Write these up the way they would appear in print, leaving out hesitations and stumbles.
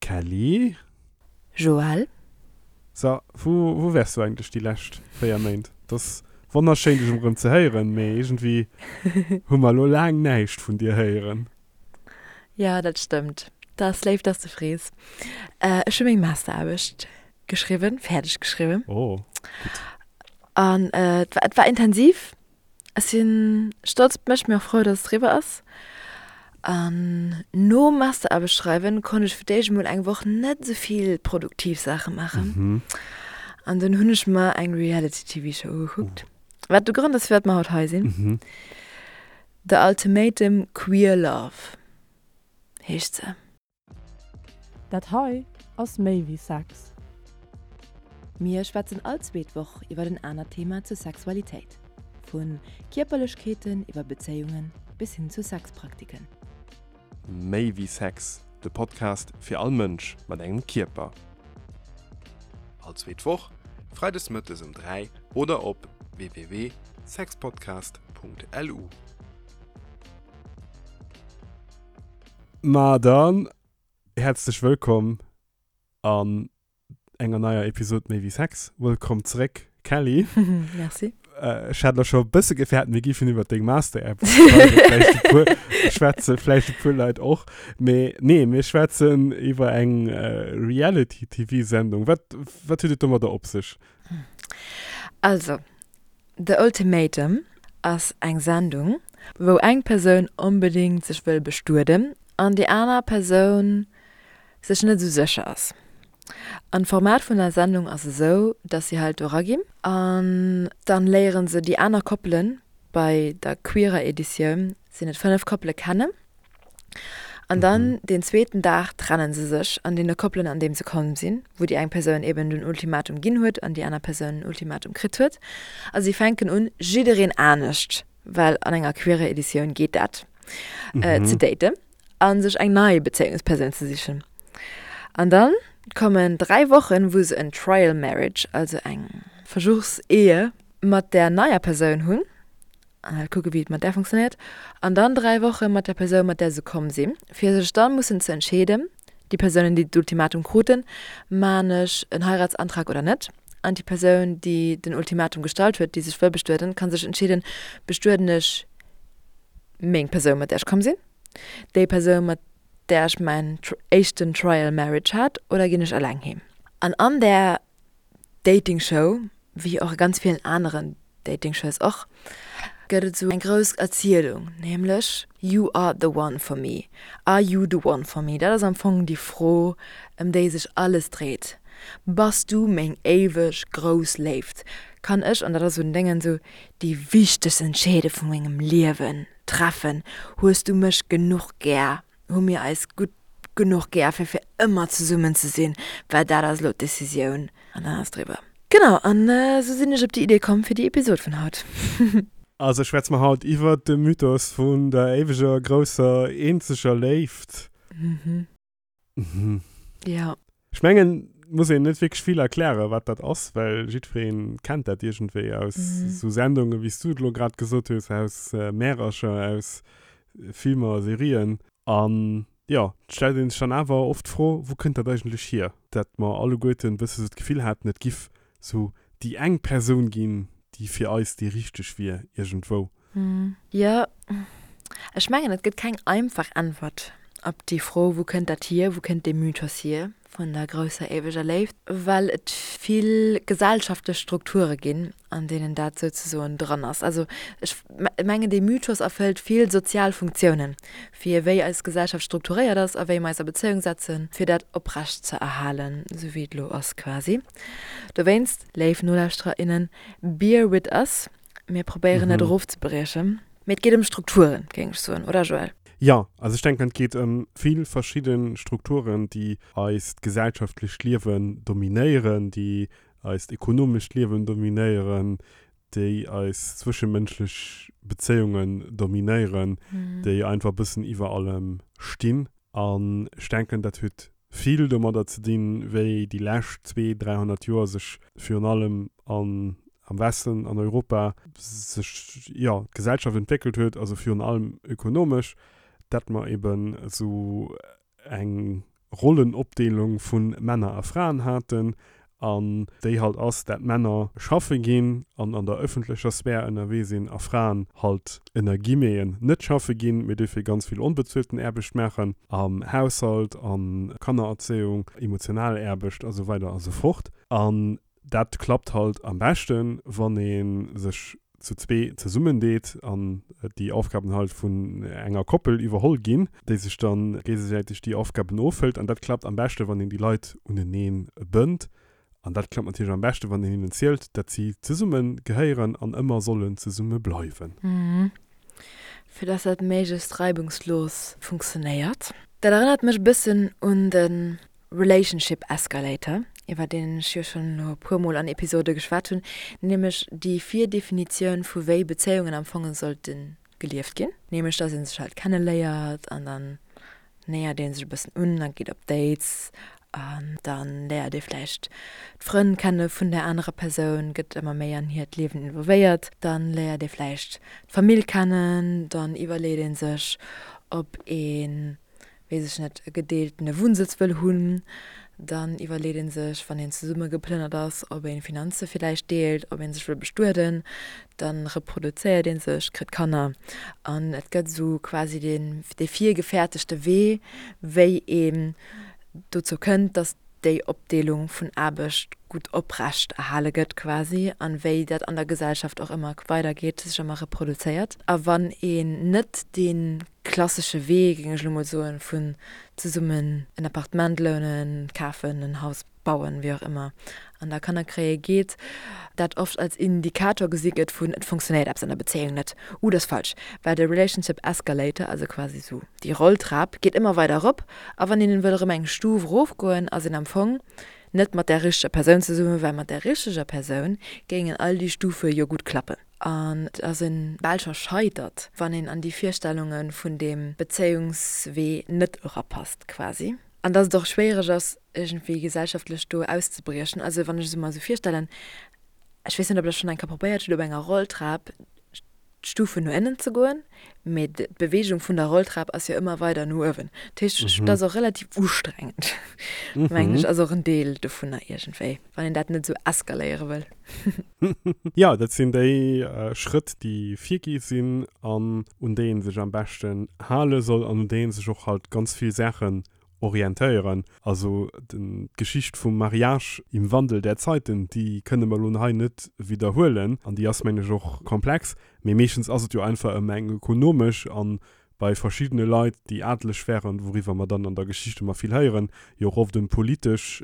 Kelly? Joël? So, wou, wou waars du eigentlech déi lescht 4 Méint? Et ass wonnerschéin dech erëm ze héieren, mee iergendwéi hu mer elo laang näischt vun dir héieren. Jo, dat stëmmt. Dat ass léif, dass de frees. Ech hu meng Masteraarbecht geschriwwen, fäerdeg geschriwwen. Oh, gutt. An et war, et war intensiv. Ech si stolz op mech, mee och frou, dass et eriwwer ass. An nom Masteraarbecht schreiwen konnt ech fir d'éischt emol eng Woch net esou vill produktiv Saache maachen. An dunn hunn ech mer eng Reality-TV-Show ugekuckt, wat de Grond ass, firwat mer haut hei sinn. The Ultimatum Queer Love heescht se. Dat hei ass méi wéi Sex. Mir schwätzen all zweet Woch iwwer en anert Thema zur Sexualitéit. Vu Kierperlechkeeten iwwer Bezéiungen bis hin zu Sexpraktiken. Méi wéi Sex, de Podcast fir all Mënsch mat engem Kierper. All zweet Woch, freides mëttes um 3 oder op www.sexpodcast.lu. Ma dann häerzlech wëllkomm an enger neier Episod Méi wéi Sex. Wëllkomm zeréck, Kelly. Merci. Ech hat elo scho e bësse gefäert, mir giffen iwwer deng Master-App schwätzen, vläicht e puer, schwätze vläicht e puer Leit och. Mee nee, mir schwätzen iwwer eng Reality-TV-Sendung. Wat, wat huet et domadder op sech? Also, The Ultimatum ass eng Sendung, wou eng Persoun onbedéngt sech wëll bestueden an déi aner Persoun sech net esou sécher ass. An d'Format vun der Sendung ass esou, dass si halt do eraginn an dann léieren se déi aner Koppelen, bei der queerer Editioun sinn et 5 Koppele, kennen. An dann deen zweeten Dag trennen se sech an deene Koppelen an deem se komm sinn, wou déi eng Persoun eben den Ultimatum ginn huet an déi aner Persoun den Ultimatum kritt huet. A si fänken un, jiddereen anescht, well an enger queerer Editioun geet dat, ze daten a sech eng nei Bezéiungspersoun ze sichen. An dann kommen 3 Wochen, wou se en Trial Marriage, also eng Versuchsehe mat där neier Persoun hunn. An halt kucke wéi et mat där funktionéiert. An dann 3 Woche mat der Persoun, mat där se komm sinn, fir sech dann mussen ze entscheeden, déi Persounen, déi d'Ultimatum kruten, Maan ech en Heiratsantrag oder net? An déi Persoun, déi den Ultimatum gestallt huet, déi sech wëll bestueden, ka sech entscheeden, Bestueden ech meng Persoun, mat där ech komm sinn, déi Persoun, mat där ech mäin éischten Trial Marriage hat, oder ginn ech eleng heem? An an där Dating Show, wéi och a ganz villen aneren Dating Shows och, gëtt et esou eng grouss Erzielung, nämlech You are the one for me, Are you the one for me? Dat ass am Fong déi Fro, ëm déi sech alles dréit. Bass du meng éiweg grouss Léift? Kann ech, an dat ass esou den Déngen, esou déi wichtegst Entscheede vu mengem Liewen treffen? Hues du mech genuch gär? Hu mir eis gutt genuch gär, fir fir ëmmer zesummen ze sinn? Well dat ass elo d'Decisioun an dann ass et eriwwer. Genau, an esou sinn ech op déi Idee komm fir déi Episod vun haut. Also schwätze mer haut iwwert de Mythos vun der éiweger, grousser, eenzeger Léift. Mhm. Mhm. Ja. Ech mengen, muss een net wierklech vill erklären, wat dat ass, well jiddweree kennt dat iergendwéi aus esou Sendungen, wéi s du et elo grad gesot hues, aus Märercher, aus Filmer, Serien. An jo, et stellt ee sech dann awer oft d'Fro, wou kënnt dat eigentlech hier, dat mer alleguerten e bësse sou d'Gefill haten, et giff sou déi eng Persoun ginn, déi fir eis déi richteg wier iergendwou. Jo, ech mengen, et gëtt keng einfach Äntwert op déi Fro, wou kënnt dat hier, wou kënnt dee Mythos hier vun der grousser éiweger Léift, well et vill gesellschaftlech Strukture ginn, an deenen dat souzesoen dran ass. Also ech mengen, dee Mythos erfëllt vill sozial Funktiounen, fir wéi eis Gesellschaft strukturéiert ass a wéi mer eis a Bezéiung setzen, fir dat oprecht ze erhalen, esou wéi et elo ass quasi. Dowéinst, léif Nolauschterer, innen, bear with us, Mir probéieren dat erofzebriechen. Mee et geet ëm Strukturen, géing ech soen, oder Joël? Jo, also ech denken, et geet ëm vill verschidde Strukturen, déi eist gesellschaftlecht Liewen dominéieren, déi eist ekonomescht Liewen dominéieren, déi eis zwëschemënschlech Bezéiungen dominéieren, déi einfach e bëssen iwwer allem stinn. An ech denken, dat huet vill domadder ze dinn, wéi déi lescht zwee, 300 Joer sech virun allem an, am Westen, an Europa, sech, jo, d'Gesellschaft entwéckelt huet, also virun allem ökonomesch, dat mer eben esou eng. Rollenopdeelung vu Männer a Fraen haten an déi halt ass, dat Männer schaffe ginn an an der ëffentlecher Sphär ënnerwee sinn a Fraen halt ënner Guillemeten net schaffe ginn, mee dofir ganz vill onbezuelten Aarbecht maachen am Haushalt, an Kannererzéiung, emotional Aarbecht a sou weider a sou fort. An Dat klappt halt am beschten, wann ee sech zu zwee zesummendeet an déi Aufgaben halt vun enger Koppel iwwerholl ginn, déi sech dann géigesäiteg déi Aufgaben ofhëlt. An dat klappt am beschten, wann een déi Leit uneneen bënnt. An dat klappt natierlech am beschten, wann een hinnen zielt, dat si zesumme gehéieren an ëmmer sollen zesumme bleiwen. Fir dass dat méiglechst reibungslos funktionéiert. Dat erënnert mech e bëssen un de Relationship Escalator, iwwer deen ech jo schonn elo e puer Mol an Episode geschwat hunn, nämlech déi Virdefinitioun vu wéi Bezéiungen am Fong sollte gelieft ginn, nämlech dass ee sech halt kenneléiert an dann néiert ee sech e bëssen un a geet op Dates an da léiert ee vläicht d'Frënn kenne vun där anerer Persoun, gëtt ëmmer méi an hiert Liewen involvéiert, dann léiert ee vläicht d'Famill kennen, dann iwwerleet ee sech, ob ee weess ech net, e gedeeltene Wunnsëtz wëll hunn, dann iwwerleet ee sech, wann een zesumme geplënnert ass, ob ee Finanze villäicht deelt, ob ee sech wëll bestueden, da reproduzéiert ee sech, kritt Kanner an et gëtt esou quasi deen, dee virgefäertegte Wee, wéi een dozou kënnt, datt déi Opdeelung vun Aarbecht gutt oprecht erhale gëtt quasi an wéi dat an der Gesellschaft och ëmmer weidergeet, sech ëmmer reproduzéiert. A wann een net dee klassesche Wee, géing ech elo mol soen, vun zesummen en Appartement lounen, kafen, en Haus bauen, wéi och ëmmer, an da Kanner kréie geet, dat oft als Indikator gesi gëtt vun et funktionéiert eppes an der Bezéiung net. Uh, dat ass falsch, well de Relationship Escalator, also quasi esou déi Rolltrap, geet ëmmer weider erop a wann een wëll erëm eng Stuf erofgoen, ass een am Fong net mat där richteger Persoun zesummen, well mat där richteger Persoun géingen all déi Stufe jo gutt klappen. An et ass e bal scho scheitert, wann een an déi Virstellunge vun deem Bezéiungswee net erapasst quasi. An dass et och schwéiereg ass, iergendwéi gesellschaftlech do auszebriechen. Also wann ech se mer esou virstellen, ech weess net, ob Der schonn eng Kéier probéiert hutt, op enger Rolltrap d'Stufen no ënnen ze goen, mee d'Beweegung vun der Rolltrap ass jo ëmmer weider no uewen. Dat heescht, dat ass och relativ ustrengend, mengen ech, ass och en Deel dovunner iergendwéi, wann een dat net esou eskaléiere wëll. Jo, dat sinn déi Schrëtt, déi virgi sinn an un déi ee sech am beschten hale soll an un déi ee sech och halt ganz vill Saachen orientéieren. Also d'Geschicht vum Mariage im Wandel der Zeiten, déi kënne mer elo hei net widderhuelen an déi ass, mengen ech, och komplex. Mee meeschtens ass et jo einfach ëm eng ökonomesch an bei verschiddene Leit, déi adeleg wären, wouriwwer mer dann an der Geschicht ëmmer vill héieren, jo och oft ëm politesch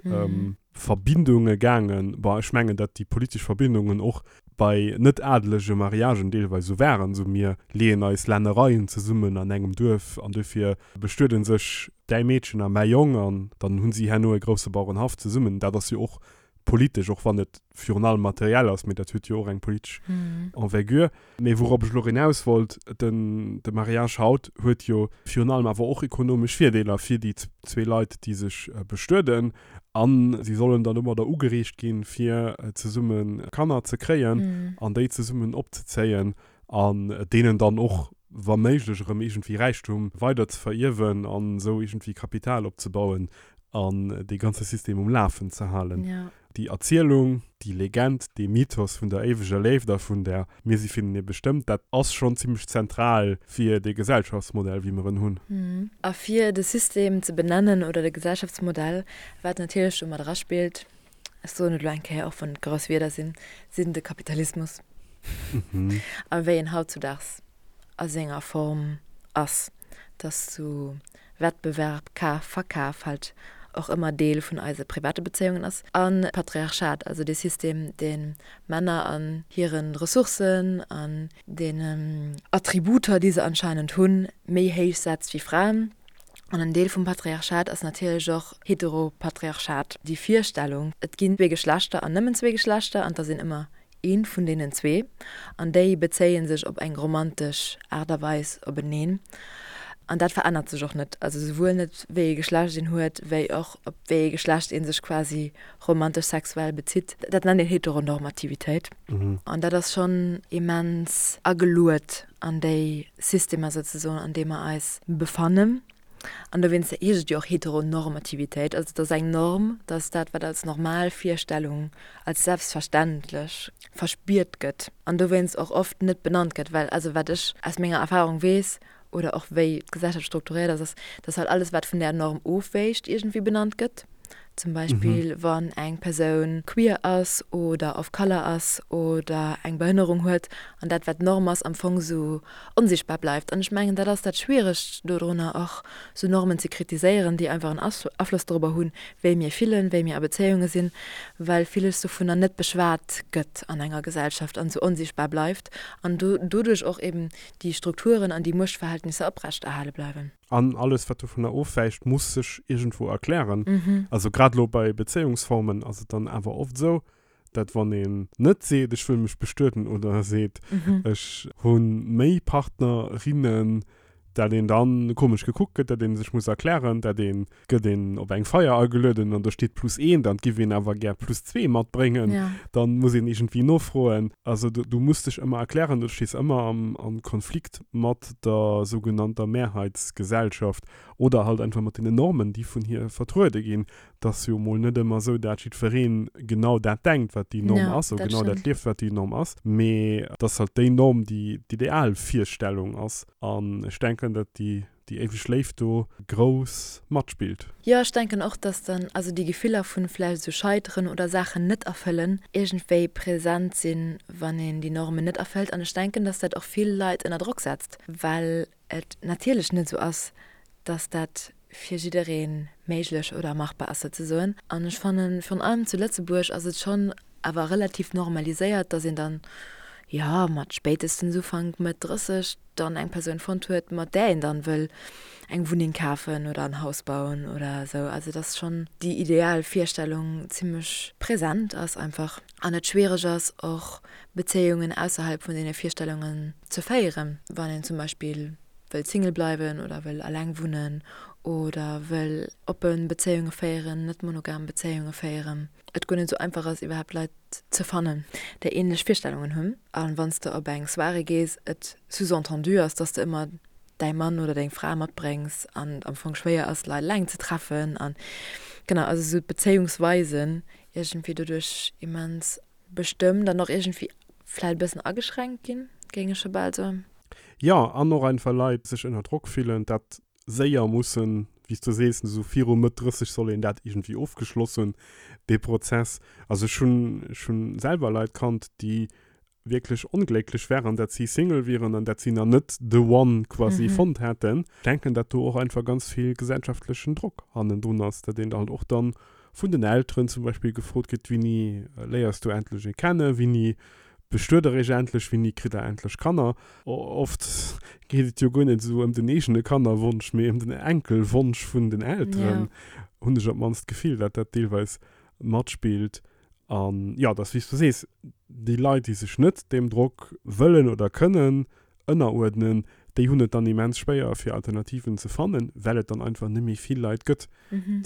Verbindunge gaangen. Bon, ech mengen, datt déi politesch Verbindungen och bei net adelege Mariagen deelweis esou waren, esou mir leeën eis Lännereien zesummen an engem Duerf an dofir bestueden sech däi Meedchen a mäi Jong an dann hunn si herno e grousse Bauerenhaff zesummen. Dat ass jo och politesch, och wann et virun allem materiell ass, mee dat huet jo och eng politesch Envergure. Mee wourop ech elo eraus wollt, den de Mariage haut huet jo virun allem awer och ekonomesch Virdeeler fir déi zwee Leit, déi sech bestueden. A si sollen dann domadder ugereegt ginn, fir zesumme Kanner ze kréien an déi zesummen opzezéien an deenen dann och wa méiglech erëm iergendwéi Räichtum weider ze verierwen an esou iergendwéi Kapital opzebauen an dee ganze System um Lafen ze halen. Déi Erzielung, déi Legend, dee Mythos vun der éiweger Léift a vun der Mir si firenee bestëmmt, dat ass schonn zimmlech zentral fir dee Gesellschaftsmodell, wéi mer en hunn. A fir de System ze benennen oder de Gesellschaftsmodell, wat natierlech do mat eraspillt, ech soen et elo eng Kéier, och wann et grouss Wierder sinn, sinn de Kapitalismus a wéi en hautzudaags a senger Form ass, dass zu Wettbewerb, Kaf, Verkaf halt och ëmmer Deel vun eise private Bezéiungen ass. A Patriarchat, also dee System, dee Männer an hire Ressourcen, an deenen Attributer, déi se anscheinend hunn, méi héich setzt wéi Fraen. An en Deel vum Patriarchat ass natierlech och Heteropatriarchat, déi Virstellung, et ginn zwee Geschlechter an nëmmen zwee Geschlechter an et ass een ëmmer Eent vun deenen zwee, an déi bezéie sech op eng romantesch Aart a Weis openeen. An dat verännert sech och net, also souwuel net wéi ee Geschlecht een huet, wéi och op wéi ee Geschlecht ee sech quasi romantesch sexuell bezitt. Dat nennt een Heteronormativitéit. An dat ass schonn immens ageluet an déi Systemer souzesoen, an deem mer eis befannen. An dowéinst heescht et jo och Heteronormativitéit. Also et ass eng Norm, dass dat, wat als normal Virstellung, als selbstverständlech verspiert gëtt an dowéinst och oft net benannt gëtt, well also wat ech aus menger Erfahrung weess oder och wéi d'Gesellschaft strukturéiert ass, ass, dass halt alles, wat vun där Norm ofwéicht, iergendwéi benannt gëtt. Zum Beispill wann eng Persoun queer ass oder of color ass oder eng Behënnerung huet an dat wat d'Norm ass am Fong sou onsichtbar bleift. An ech mengen dat ass dat Schwieregt dodrunner och sou Normen ze kritiséieren, déi einfach en Afloss dorobber hunn, wéi mir fillen, wéi mir a Bezéiunge sinn, well villes dovunner net beschwat gëtt an enger Gesellschaft an sou onsichtbar bleift an doduerch och eben déi Strukturen an déi Muechtverhältnisser oprechterhale bleiwen. An alles, wat dovunner ofwäicht, muss sech iergendwou erklären. Also grad elo bei Bezéiungsformen ass et dann awer oft esou, dat wann een net seet, ech wëll mech bestueden oder seet, ech hu méi Partnerinnen, dat een dann komesch gekuckt gëtt, dat ee sech muss erklären, dat een gëtt een op eng Feier agelueden an do steet plus eent an et giff een awer gär plus zwee matbréngen, dann muss een iergendwéi nofroen. Also du muss dech ëmmer erklären, du stees ëmmer am am Konflikt mat der sougenannter Mehrheitsgesellschaft oder halt einfach mat deenen Normen, déi vun hir vertruede ginn. Et ass jo mol net ëmmer esou, dat jiddwereen genau dat denkt, wat déi Norm ass, oder genau dat lieft, wat déi Norm ass, mee et ass halt déi Norm, déi d'Idealvirstellung ass. An ech denken, dat déi déi éiweg Léift do grouss matspillt. Jo, ech denken och, dass dann also déi Gefiller vun vläicht esou Scheiteren oder Saachen net erfëllen iergendwéi present sinn, wann een déi Normen net erfëllt. An ech denken, dass dat och vill Leit ënner Drock setzt, well et natierlech net esou ass, dass dat fir jidderee méiglech oder machbar ass souzesoen. An ech fannen, virun allem zu Lëtzebuerg ass et schonn awer relativ normaliséiert, dass een dann, jo, mat spéitestens Ufank, Mëtt 30 dann eng Persoun fonnt huet, mat där een dann wëll eng Wunneng kafen oder en Haus bauen oder esou. Also dass schonn déi ideal Virstellung zimmlech present ass einfach an et schwiereg ass och Bezéiungen ausserhalb vun deene Virstellungen ze féieren, wann een zum Beispill wëll Single bleiwen oder wëll alleng wunnen oder wëll oppe Bezéiunge féieren, net monogam Bezéiunge féieren. Et guer net esou einfach ass iwwerhaapt Leit ze fannen, déi ähnlech Virstellungen hunn. A wann s de op eng Soirée gees, et sous-entendu ass, dass de ëmmer däi Mann oder deng Fra matbréngs an et am Fong schwéier ass, Leit eleng ze treffen. An genau, also esou d'Bezéiungsweisen iergendwéi doduerch immens bestëmmt an och iergendwéi vläicht e bëssen ageschränkt ginn, géing ech scho bal soen. Jo, an och einfach Leit sech ënner Drock fillen, dat séier mussen, wéi s du sees, esou viru Mëtt 30 soll een dat iergendwéi ofgeschloss hunn, dee Prozess. Also ech hunn, ech hunn selwer Leit kannt, déi wierklech onglécklech waren, dat si Single wieren an dat si nach net the one quasi fonnt hätten. Ech denken, dat do och einfach ganz vill gesellschaftlechen Drock hannendrun ass, dat een halt och dann vun den Elteren zum Beispill gefrot kritt, Wéini léiers du endlech ee kennen, wéini bestuet der iech endlech, wéini kritt der endlech Kanner? Oft geet et jo guer net esou ëm den eegene Kannerwonsch, mee ëm den Enkelwonsch vun den Elteren, hunn ech op d'mannst d'Gefill, dat dat deelweis matspillt. An jo, et ass wéi s du sees, déi Leit, déi sech net deem Drock wëllen oder kënnen ënneruerdnen, déi hunn et dann immens schwéier fir Alternativen ze fannen, well et dann einfach net méi vill Leit gëtt,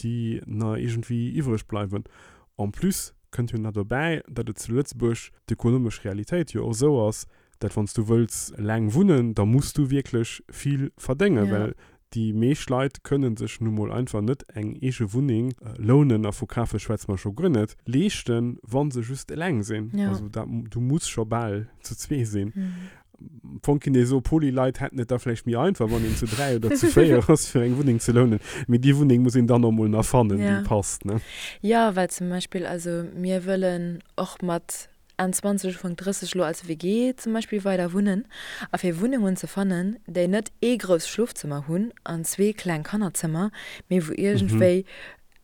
déi na iergendwéi iwwreg bleiwen. En plus kënnt jo nach dobäi, datt et zu Lëtzebuerg d'ökonomesch Realitéit jo och esou ass, dat wann s du wëlls eleng wunnen, da muss du wierklech vill verdéngen, well déi meescht Leit kënne sech nu mol einfach net eng eege Wunneng lounen, a vu kafe schwätze mer scho guer net, leeschten, wa se just eleng sinn. Also dat, du muss scho bal zu zwee sinn. Am Fong kinnt ee soen, Poly-Leit hätten et da vläicht méi einfach, wann een zu 3 oder zu 4 ass, fir eng Wunneng ze lounen. Mee déi Wunneng muss een dann och mol nach fannen, déi passt, ne? Jo, well zum Beispill, also mir wëllen och mat Enn 20, Ufank 30 elo als WG zum Beispill weider wunnen. A fir Wunnengen ze fannen, déi net ee grousst Schlofzëmmer hunn an zwee kleng Kannerzëmmer, mee wou iergendwéi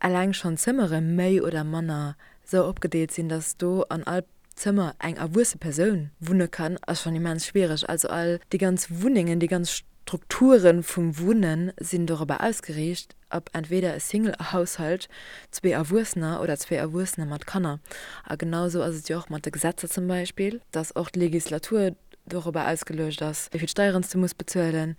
eleng schonn d'Zëmmere méi oder manner sou opgedeelt sinn, dass do an all Zëmmer eng erwuesse Persoun wunne kann, ass schonn immens schwiereg. Also all déi ganz Wunnengen, déi ganz Strukture vum Wunnen sinn dorobber ausgeriicht, op entweder e Single-Haushalt, zwee Erwuessener oder zwee Erwuessener mat Kanner. A genau esou ass et jo och mat de Gesetzer zum Beispill, dass och d'Legislatur dorobber ausgeluecht ass, wéi vill Steieren s de muss bezuelen,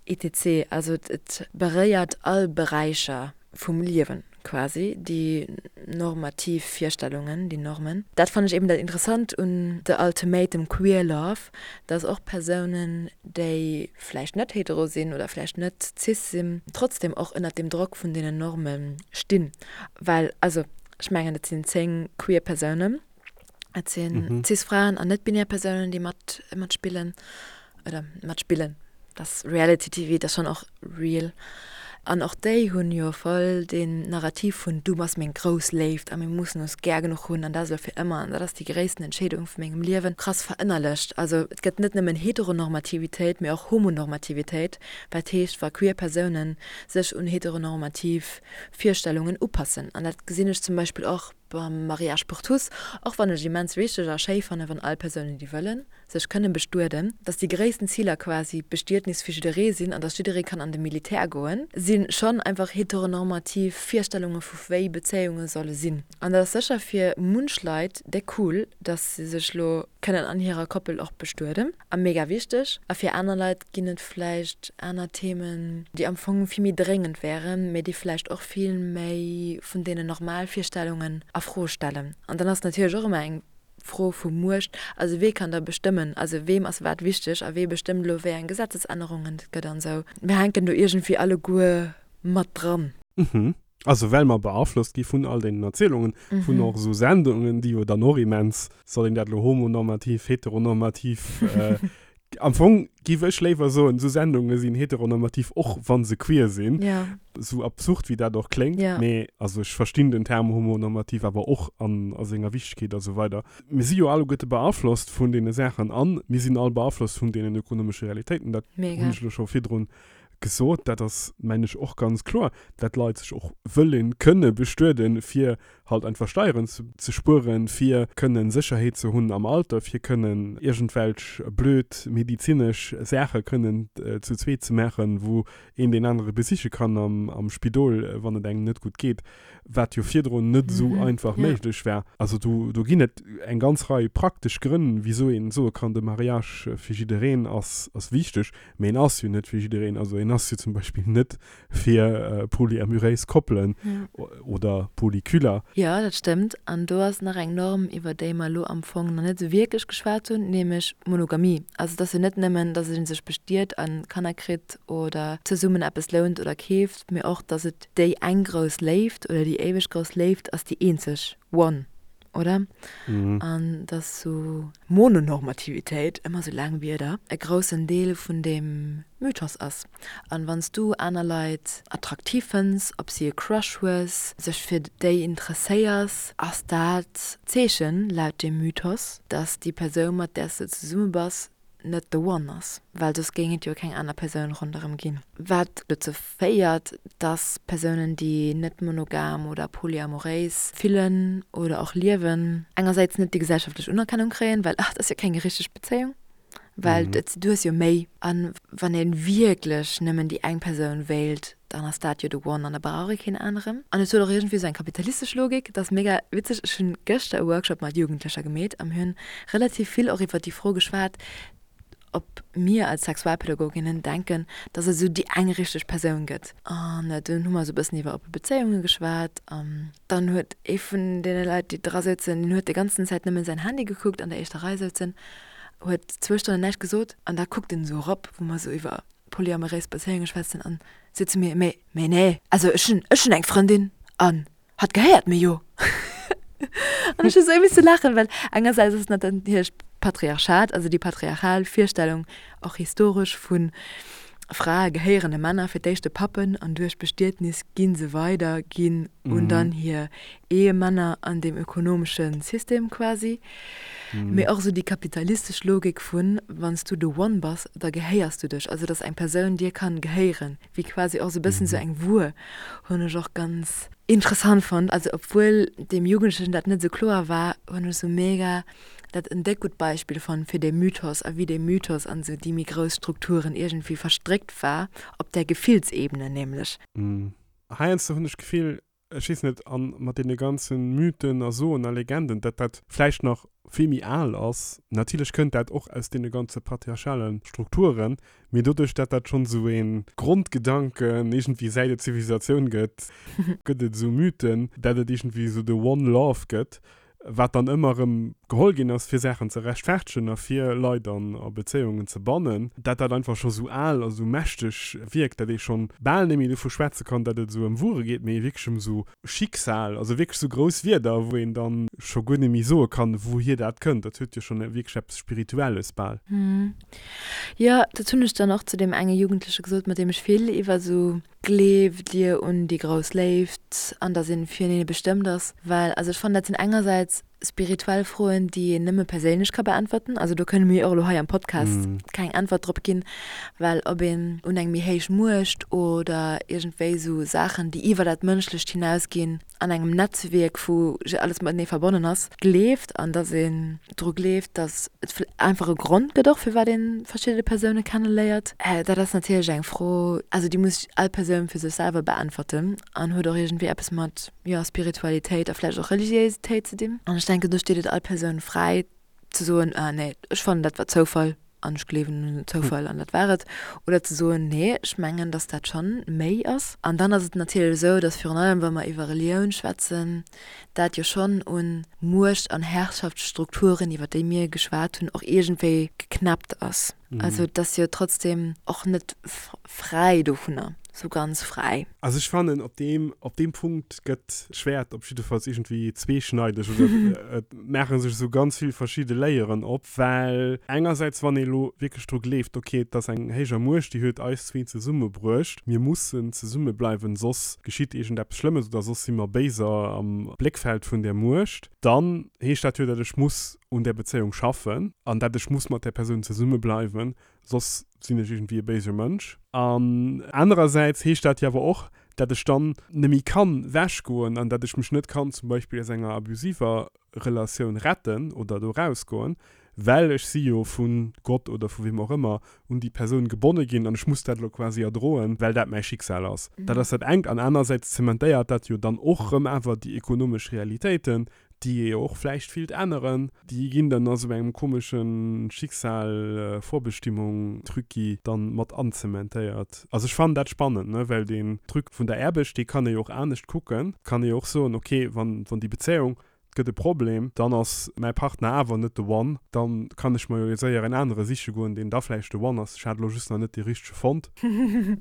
etc. Also et beréiert all Beräicher vum Liewen. quasi, déi normativ Virstellungen, déi Normen. Dat fannen ech eben dat Interessant un The Ultimatum Queer Love, dass och Persounen, déi vläicht net hetero sinn oder vläicht net cis sinn, trotzdem och ënnert dem Drock vun deenen Norme stinn. Well, also ech mengen, et sinn 10 queer Persounen, et sinn cis Fraen an net-binär Persounen, déi mat matspillen oder matspillen, dat ass Reality TV, dat ass schonn och real. An och déi hunn jo voll deen Narrativ vun du bass meng grouss Léift a mir mussen ons gär genuch hunn an dat ass elo fir ëmmer an dat ass déi gréissten Entscheedung vu mengem Liewen krass verënnerlecht. Also et gëtt net nëmmen Heteronormativitéit, mee och Homonormativitéit, wat heescht wa queer Persounen sech un heteronormativ Virstellungen upassen. An dat gesinn ech zum Beispill och beim Mariage pour tous, och wann ech immens wichteg a schéi fannen, wann all Persounen déi wëllen, sech kënne bestueden, dass déi gréissten Ziler quasi d'Bestietnis fir jidderee sinn an dass jidderee kann an de Militär goen, si schonn einfach heteronormativ Virstellunge vu wéi Bezéiunge solle sinn. An dat ass sécher fir munch Leit déck cool, dass se sech lo kënnen an hirer Koppel och bestueden a mega wichteg. A fir aner Leit ginn et vläicht aner Themen, déi am Fong vill méi dréngend wären, mee déi vläicht och vill méi vun deenen normal Virstellungen a Fro stellen. An dann ass natierlech och ëmmer eng Fro vu Muecht, also wee kann da bestëmmen, also weem ass wat wichteg a wee bestëmmt elo wéi eng Gesetzesännerungen et gëtt an esou. Mir hänken do iergendwéi alleguer mat dran. Mhm. Also well mer beaflosst gi vun all deenen Erzielungen, vun och esou Sendungen, déi jo dann och immens, soll een dat elo homonormativ, heteronormativ, am Fong giff ech léiwer soen, esou Sendunge sinn heteronormativ, och wa se queer sinn, esou absurd wéi dat och kléngt, mee also ech verstinn den Term homonormativ awer och an a senger Wichtegkeet a sou weider. Mir si jo alleguerte beaflosst vun deene Saachen an mir sinn all beaflosst vun deenen ökonomesche Realitéiten, dat hunn ech elo scho virdrun gesot, dat ass mengen ech och ganz kloer, dat d'Leit sech och wëllen kënne bestueden, fir halt einfach Steieren ze spueren, fir kënnen Sécherheet ze hunn am Alter, fir kënnen iergendwelch blöd medizinesch Saache kënnen zu zweet ze maachen, wou een deen anere besiche kann am Spidol, wann et engem net gutt geet, wat jo virdrun net esou einfach méiglech war. Also do do ginn et eng ganz Rei praktesch Grënn, wisou een soe kann, de Mariage fir jiddereen ass ass wichteg, mee en ass jo net fir jiddereen. Also en ass jo zum Beispill net fir polyamuréis Koppelen oder Polyculer. Jo, dat stëmmt. An do ass nach eng Norm, iwwer déi mer elo am Fong nach net esou wierklech geschwat hunn, nämlech d'Monogamie. Also et ass jo net nëmmen, datt ee sech bestiet a Kanner kritt oder zesummen eppes lount oder keeft, mee och, datt et déi eng grouss Léift oder déi éiweg grouss Léift ass, déi eenzeg One. Oder? An dass sou Mononormativitéit, ëmmer sou laang Wierder, e groussen Deel vun deem Mythos ass. An wann s du aner Leit attraktiv fënns, op si e Crush hues, sech fir déi interesséiers, ass dat d'Zeechen, laut deem Mythos, dass déi Persoun, mat där s de zesumme bass, net the one ass, well soss géing et jo keng aner Persoun ronderëm ginn. Wat dozou féiert, dass Persounen, déi net monogam oder polyamoréis fillen oder och liewen, engersäits net déi gesellschaftlech Unerkennung kréien, well ach, dat ass jo keng richteg Bezéiung, well du hues jo méi. A wann ee wierklech nëmmen déi eng Persoun wéilt, dann ass dat jo the one an da brauch ee keen aneren. An et huet och iergendwéi esou eng kapitalistesch Logik, dat ass mega witzeg. Ech hunn gëschter e Workshop mat Jugendlecher gemeet a mir hunn relativ vill och iwwer déi Fro geschwat, ob mir als Sexualpädagoginnen denken, dass et esou déi eng richteg Persoun gëtt. An dunn hu mer esou e bëssen iwwer oppe Bezéiunge geschwat an dann huet ee vun deene Leit, déi dra souzen, deen huet déi ganzen Zäit nëmmen säin Handy gekuckt, an der éischter Rei souzen, huet zwou Stonnen näischt gesot an da kuckt en esou erop, wou mer esou iwwer polyamoréis Bezéiunge schwätzen an seet zu mir, Mee, mee nee, also ech hunn, ech hunn eng Frëndin an hatt gehéiert mir jo. An ech hu sou misse laachen, well engersäits ass et natierlech d'Patriarchat, also déi patriarchal Virstellung, och historesch, vu Frae gehéieren de Männer, fir d'éischt de Pappen an duerch Bestietnis gi se weider ginn un dann hir Ehemänner an deem ökonomesche System quasi. Mee och esou déi kapitalistesch Logik vun, wann s du the one bass, da gehéiers du dech, also dass eng Persoun dir kann gehéieren, wéi quasi och esou e bëssen esou eng Wuer, hunn ech och ganz interessant fonnt. Also obwuel deem Jugendlechen dat net esou kloer war, hunn ech esou mega dat en déck gutt Beispill fonnt fir dee Mythos a wéi dee Mythos an esou déi méi grouss Strukturen iergendwéi verstréckt war, op där Gefillsebene nämlech. Heiansdo hunn ech d'Gefill. Ech weess net, a mat deene ganze Mythen a Soen a Legenden, datt dat vläicht nach vill méi al ass. Natierlech kënnt dat och aus deene ganze patriarchale Strukturen, mee doduerch, datt dat schonn esou ee Grondgedanken iergendwéi säit et Zivilisatioun gëtt, gëtt et esou Mythen, datt et iergendwéi esou de One Love gëtt, wat dann ëmmer erëm geholl ginn ass, fir Saachen ze rechtfertegen a fir Leit an a Bezéiungen ze bannen, dat dat einfach scho sou al a sou mächteg wierkt, dat ee schonn bal net méi dovu schwätze kann, dat et esou ëm Wuere geet, mee wierklech ëm sou Schicksal, also wierklech sou grouss Wierder, wou een dann scho guer net méi soe kann, wouhier dat kënnt. Dat huet jo schonn wierklech eppes Spirituelles bal. Jo, dat hunn ech dann och zu deem enge Jugendleche gesot, mat deem ech vill iwwer sou Gleeft Dir un déi grouss Léift an dass een firenee bestëmmt ass? Well, also ech fannen dat sinn engersäits spirituell Froen déi een nëmme perséinlech ka beäntwerten, also do kënne mir jo och elo hei am Podcast keng Äntwert drop ginn, well ob een un eng méi héich Muecht oder iergendwéi esou Saachen déi iwwer dat Mënschlecht hinausginn, an engem Netzwierk wou alles matenee verbonnen ass, gleeft an dass een dru gleeft, dass et einfach e Grond gëtt och firwat ee verschidde Persoune kenneléiert. Dat ass natierlech eng Fro, also déi muss all Persoun fir sech selwer beäntwerten an huet och iergendwéi eppes mat, jo, Spiritualitéit a vläicht och Religiéisitéit ze dinn. An ech denken, do steet et all Persoun fräi ze soen, ah nee, ech fannen dat war Zoufall an ech gleewen un den Zoufall an dat war et, oder ze soen, nee, ech mengen, datt dat schonn méi ass. An dann ass et natierlech esou, datt virun allem wa mer iwwer Relioun schwätzen, dat jo schonn un Muecht an Herrschaftsstrukturen, iwwer déi mir geschwat hunn, och iergendwéi geknäppt ass. Also et ass jo trotzdem och net fräi dovunner, sou ganz fräi. Also ech fannen, op deem, op deem Punkt gëtt d'Schwäert op jiddefalls iergendwéi zweeschneideg oder et maache sech esou ganz vill verschidde Layeren op, well engersäits, wann ee elo wierklech dru gleeft, ok, et ass eng héijer Muecht, déi huet eis zwee zesummebruecht, mir mussen zesummebleiwen, soss geschitt iergendeppes Schlëmmes oder soss si mer béiser am Bléckfeld vun där Muecht, dann heescht dat jo, datt ech muss un där Bezéiung schaffen an dat ech muss mat där Persoun zesumme bleiwen, soss sinn ech iergendwéi e béise Mënsch. An anerersäits heescht dat jo awer och, dat ech dann neméi kann wechgoen an dat ech mech net kann zum Beispill aus enger abusiver Relatioun retten oder do rausgoen, well ech si jo vu Gott oder vu weem och ëmmer un déi Persoun gebonne ginn an ech muss dat elo quasi erdroen, well dat mäi Schicksal ass. Dat ass dat engt. An anerersäits zementéiert dat jo dann och rëm awer déi ekonomesch Realitéiten, déi ee jo och vläicht willt änneren, déi ginn dann a sou engem komesche Schicksal-Vorbestimmung-Trucki dann mat anzementéiert. Also ech fannen dat spannend, ne, well deen Truc vun der Aarbecht, dee kann ee jo och anescht kucken. Kann ee jo och soen, ok, wann, wann déi Bezéiung, et gëtt e Problem, dann ass mäi Partner awer net de One, dann kann ech mer jo séier en anere siche goen, deen da vläicht de One ass. Ech hat elo just nach net dee richtege fonnt.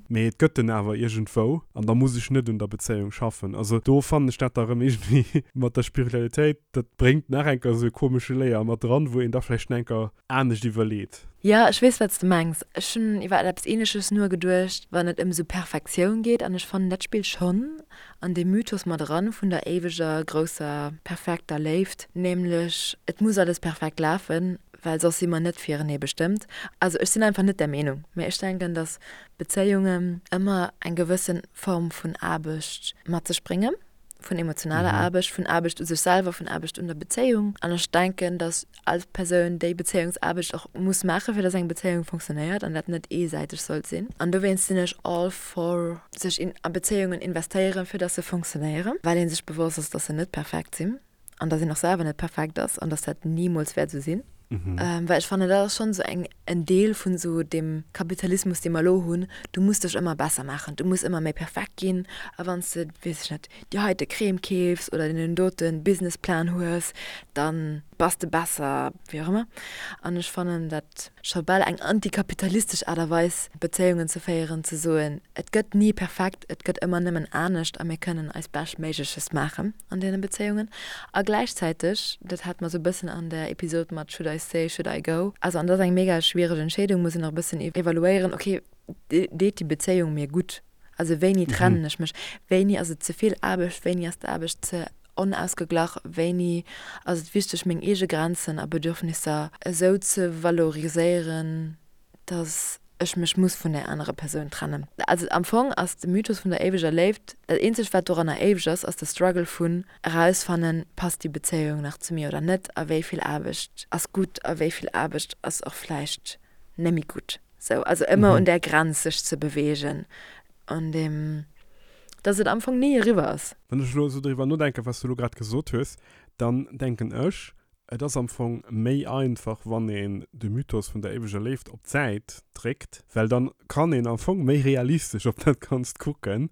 Mee et gëtt en awer iergendwou an da muss ech net un der Bezéiung schaffen. Also do fannen ech dat da rëm iergendwéi mat der Spiritualitéit, dat bréngt nach eng Kéier esou e komesche Layer mat dran, wou een da vläicht nach eng Kéier anescht iwwerleet. Jo, ech weess, wat s de mengs. Ech hunn iwwer eppes Ähnleches nogeduecht, wann et ëm esou Perfektioun geet. An ech fannen, dat spillt schonn an dee Mythos mat eran vun der éiweger, grousser, perfekter Léift, nämlech et muss alles perfekt lafen, well soss si mer net firenee bestëmmt. Also ech sinn einfach net där Meenung, mä ech denken, datt Bezéiungen ëmmer eng gewësse Form vun Aarbecht mat sech bréngen, vun emotionaler Aarbecht, vun Aarbecht u sech selwer, vun Aarbecht un der Bezéiung. An ech denken, datt all Persoun déi Bezéiungsaarbecht och muss maachen, fir datt eng Bezéiung funktionéiert an dat net eesäiteg sollt sinn. An dowéinst sinn ech all for sech a Bezéiungen investéieren, fir datt se funktionéieren, well ee sech bewosst ass, datt se net perfekt sinn. an dass een och selwer net perfekt ass an dass dat nimools wäert esou sinn. Well ech fannen, dat ass schonn esou eng, en Deel vun esou deem Kapitalismus, dee mer elo hunn, du muss dech ëmmer besser maachen, du muss ëmmer méi perfekt ginn a wann s de, weess ech net, déi heite Crème keefs oder deen dote Businessplan hues, da bass de besser, wéi och ëmmer. An ech fannen dat scho bal eng antikapitalistesch Aart a Weis, Bezéiungen ze féieren, ze soen, et gëtt ni perfekt, et gëtt ëmmer nëmmen anescht a mir kënnen eist Beschtméigleches maachen. an deene Bezéiungen a gläichzäiteg, dat hat mer sou e bëssen an der Episod mat Should I stay, should I go, also an dat ass eng mega schwiereg Entscheedung, muss een och e bëssen evaluéieren, ok, deet déi Bezéiung mir gutt, also wéini trennen ech mech, wéini ass et ze vill Aarbecht, wéini ass d'Aarbecht ze onausgeglach, wéini ass et wichteg meng eege Grenzen a Bedürfnisser esou ze valoriséieren, dass ech mech muss vun där anerer Persoun trennen. Also am Fong ass de Mythos vun der éiweger Léift, dat eenzegt wat doranner éiweg ass, ass de Struggle vun erausfannen, passt déi Bezéiung nach zu mir oder net a wéi vill Aarbecht ass gutt a wéi vill Aarbecht ass och vläicht nemme gutt. Sou, also ëmmer un där Grenz sech ze beweegen, un deem. Dass et am Fong ni eriwwer ass. Wann ech elo esou driwwer nodenken, wat s du elo grad gesot hues, dann denken ech, et ass am Fong méi einfach, wann een de Mythos vun der éiweger Léift op d'Säit dréckt, well dann kann een am Fong méi realistesch op dat Ganzt kucken.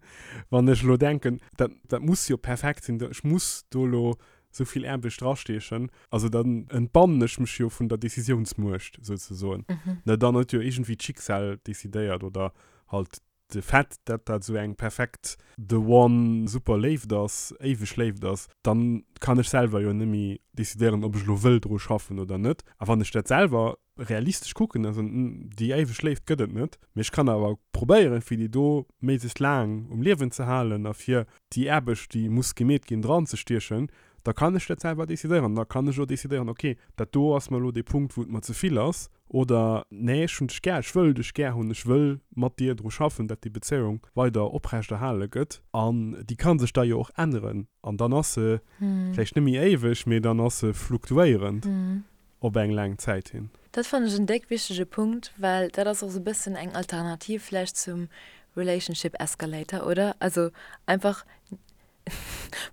Wann ech elo denken, dat, dat muss jo perfekt sinn, ech muss do elo esou vill Aarbecht drastiechen, also dann entbannen ech mech jo vun der Decisiounsmuecht souzesoen. Ne, dann huet jo iergendwéi d'Schicksal decidéiert oder halt de Fait, dat dat esou eng perfekt the one super Léift ass, éiweg Léift ass, dann kann ech selwer jo net méi decidéieren, ob ech elo wëll dru schaffen oder net. A wann ech dat selwer realistesch kucken, also déi éiweg Léift gëtt et net, mee ech kann awer probéieren, fir déi do méiglechst laang um Liewen ze halen a fir déi Aarbecht, déi muss gemeet ginn, dranzestiechen, da kann ech dat selwer decidéieren. Da kann ech och decidéieren, ok, dat do ass mer elo dee Punkt, wou et mer ze vill ass, oder nee, ech hunn dech gär, ech wëll dech gär hunn, ech wëll mat dir dru schaffen, dat déi Bezéiung weider oprechterhale gëtt. An déi ka sech da jo och änneren an dann ass se vläicht net méi éiweg, mee dann ass se fluktuéierend op eng laang Zäit hin. Dat fannen ech en déck wichtege Punkt, well dat ass och sou bëssen eng Alternativ vläicht zum Relationship Escalator, oder? Also einfach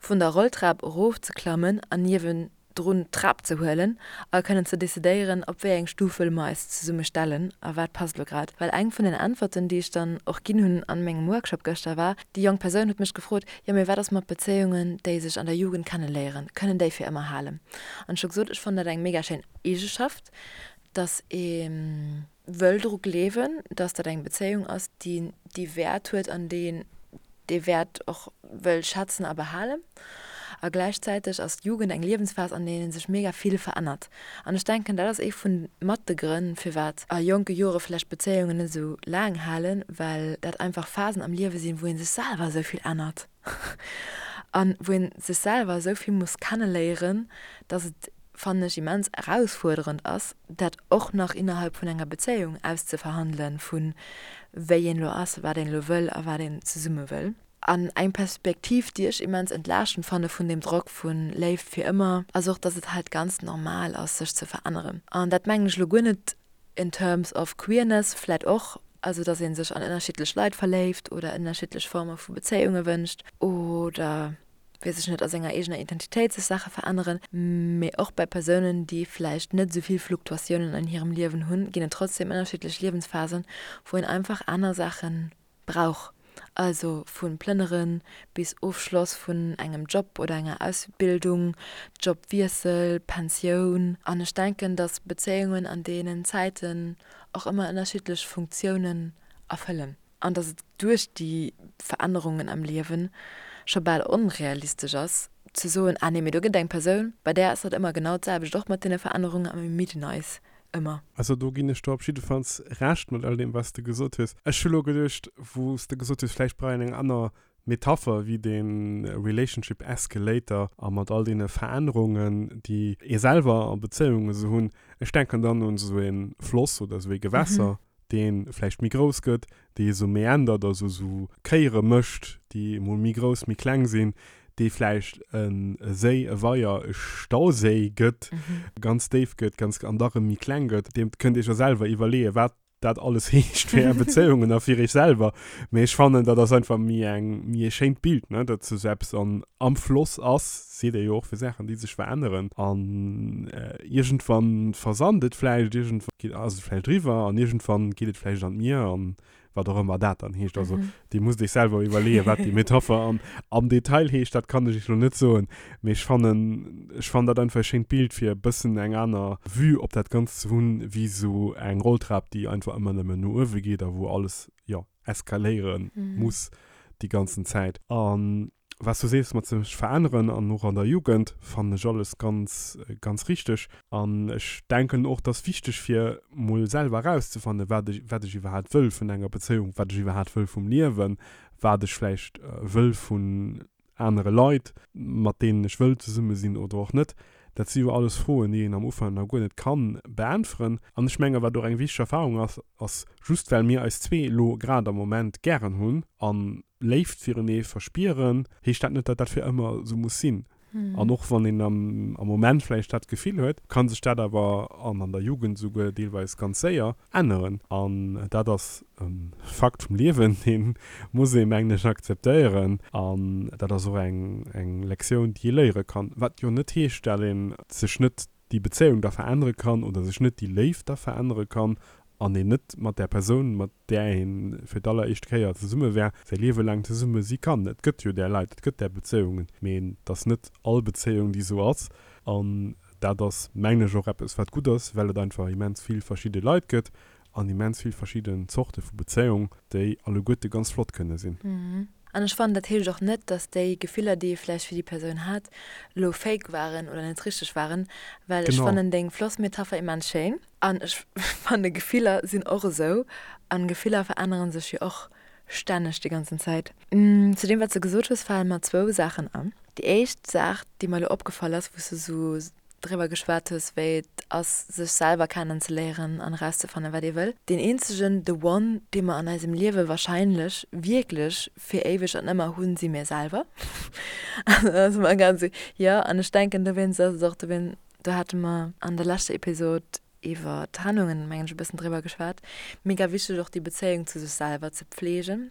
vun der Rolltrap erof ze klammen an niewendrun d'Trap ze huelen a kënnen ze decidéieren, op wéi eng Stuf wëlle mer eis zesumme stellen a wat passt elo grad. Well eng vun den Äntwerten, déi ech dann och ginn hunn an mengem Workshop gëschter, war, déi jonk Persoun huet mech gefrot, jo mee wat ass mat Bezéiungen, déi sech an der Jugend kenneléieren, kënnen déi fir ëmmer halen? An ech hu gesot, ech fannen dat eng mega schéin Eegeschaft, dass ee wëll dru gleewen, dass dat eng Bezéiung ass, déi déi Wäert huet an déi een dee Wäert och wëll schätzen a behalen. A gläichzäiteg ass d'Jugend eng Liewensphas, an deenen sech mega vill verännert. An ech denken, dat ass ee vun mat de Grënn, firwat a jonke Jore vläicht Bezéiungen net esou laang halen, well dat einfach Phasen am Liewe sinn, wou ee sech selwer esou vill ännert an wou ee sech selwer esou vill muss kenneléieren, dass et fannen ech immens erausfuerderend ass, dat och nach innerhalb vun enger Bezéiung auszeverhandelen, vu wéi een elo ass, wat een elo wëll a wat een zesumme wëll. An eng Perspektiv, déi ech immens entlaaschtend fanne vun deem Drock vu Léift fir ëmmer, ass och, dass et halt ganz normal ass, sech ze veränneren. An dat mengen ech elo guer net in terms of queerness, vläit och, also dass ee sech an ënnerschiddlech Leit verléift oder ënnerschiddlech Forme vu Bezéiunge wënscht oder, weess ech net, a senger eegener Identitéit sech Saache veränneren, mee och bei Persounen, déi vläicht net esou vill Fluktuatiounen an hirem Liewen hunn, ginn et trotzdem ënnerschiddlech Liewensphasen, wou een einfach aner Saache brauch. Also vu Plënnere bis Ofschloss vun engem Job oder enger Ausbildung, Jobwiessel, Pensioun. An ech denken, datt Bezéiungen an deenen Zäiten och ëmmer ënnerschiddlech Funktiounen erfëllen. An datt et duerch déi Verännerungen am Liewen scho bal onrealistesch ass, ze soen, ah nee, mee do gëtt et eng Persoun, bei där ass dat ëmmer genau d'selwecht, och mat deene Verännerungen a mir midden eis ëmmer. Also do ginn ech der op jiddefalls Recht mat all deem, wat s de gesot hues. Ech hu lo geduecht, wou s de gesot hues, vläicht brauch een eng aner Metapher wéi dee Relationship Escalator a mat all deene Verännerungen, déi ee selwer a Bezéiunge sou hunn. Ech denken dann un esou e Floss oder esou ee Gewässer, dee vläicht méi grouss gëtt, dee esou meandert, also esou Kéiere mécht, déi emol méi grouss, méi kleng sinn, dee vläicht e Séi, e Weier, e Stauséi gëtt, ganz déif gëtt, ganz an da rëm méi kleng gëtt. Dir kënnt Iech jo selwer iwwerleeën, wat dat alles heescht fir Är Bezéiungen a fir Iech selwer. Mee ech fannen, dat ass einfach méi eng, méi e schéint Bild, ne, datt esou eppes an, am Floss ass, seet ee jo och fir Saachen, déi sech veränneren. An iergendwann versand et vläicht, iergendwann geet, ass et vläicht eriwwer an iergendwann geet et vläicht an d'Mier an wat och ëmmer dat dann heescht. Also Dir musst Iech selwer iwwerleeën, wat déi Metapher am, am Detail heescht, dat kann ech Iech elo net soen. Mee ech fannen, ech fannen dat einfach e schéint Bild, fir e bëssen eng aner Vue op dat Ganzt ze hunn, wéi esou eng Rolltrap, déi einfach ëmmer nëmmen no uewe geet a wou alles, jo, eskaléiere muss déi ganzen Zäit. An Wat s du sees mat sech veränneren an och an der Jugend, fannen ech alles ganz, ganz richteg. An ech denken och, et ass wichteg fir mol selwer erauszefannen, wat ech, wat ech iwwerhaapt wëll vun enger Bezéiung, wat ech iwwerhaapt wëll vum Liewen, wat ech vläicht wëll vun anere Leit, mat deenen ech wëll zesumme sinn oder och net. Dat si jo alles Froen, déi een am Ufank nach guer net kann beäntweren. An ech menge wat och eng wichteg Erfahrung ass, ass just well mir eis zwee elo grad am Moment gären hunn an Léift firenee verspieren, heescht dat net, datt dat fir ëmmer esou muss sinn. An och wann een am Moment vläicht dat Gefill huet, ka sech dat awer, an an der Jugend esouguer deelweis ganz séier, änneren. An dat ass e Fakt vum Liewen, dee muss ee mengen ech akzeptéieren. An dat ass och eng Lektioun, déi ee léiere kann. Wat jo net heescht, dat ee sech net déi Bezéiung da verännere kann oder sech net déi Léift da verännere kann an een net mat där Persoun, mat där ee fir d'alleréischt Kéier zesumme war, säi Liewe laang zesumme si kann. Et gëtt jo där Leit, et gëtt där Bezéiungen, mee et ass net all Bezéiung, déi esou ass. An dat ass, mengen ech, och eppes, wat gutt ass, well et einfach immens vill verschidde Leit gëtt an immens vill verschidden Zorte vu Bezéiung, déi alleguerte ganz flott kënne sinn. An ech fannen, dat heescht och net, dass déi Gefiller, déi ee vläicht fir déi Persoun hat, elo fake waren oder net richteg waren, well ech fannen deng Flossmetapher immens schéin. An ech fanne Gefiller sinn och esou an Gefiller veränneren sech jo och stänneg déi ganzen Zäit. Zu deem wat s de gesot hues fale mer zwou Saachen an. Déi éischt Saach déi mer elo opgefall ass, wou s de esou driwwer geschwat hues wéi et ass sech selwer kennen ze léieren an erauszefannen wat ee wëll. Deen eenzegen, the one, dee mer an eisem Liewe wahrscheinlech wierklech fir éiweg an ëmmer hunn, si mir selwer. Also dat ass ëmmer ganz, jo an ech denken dowéinst ass et och dowéin, do hate mer an der leschter Episod iwwer Trennungen, mengen ech, e bëssen driwwer geschwat, mega wichteg och déi Bezéiung zu sech selwer ze pflegen.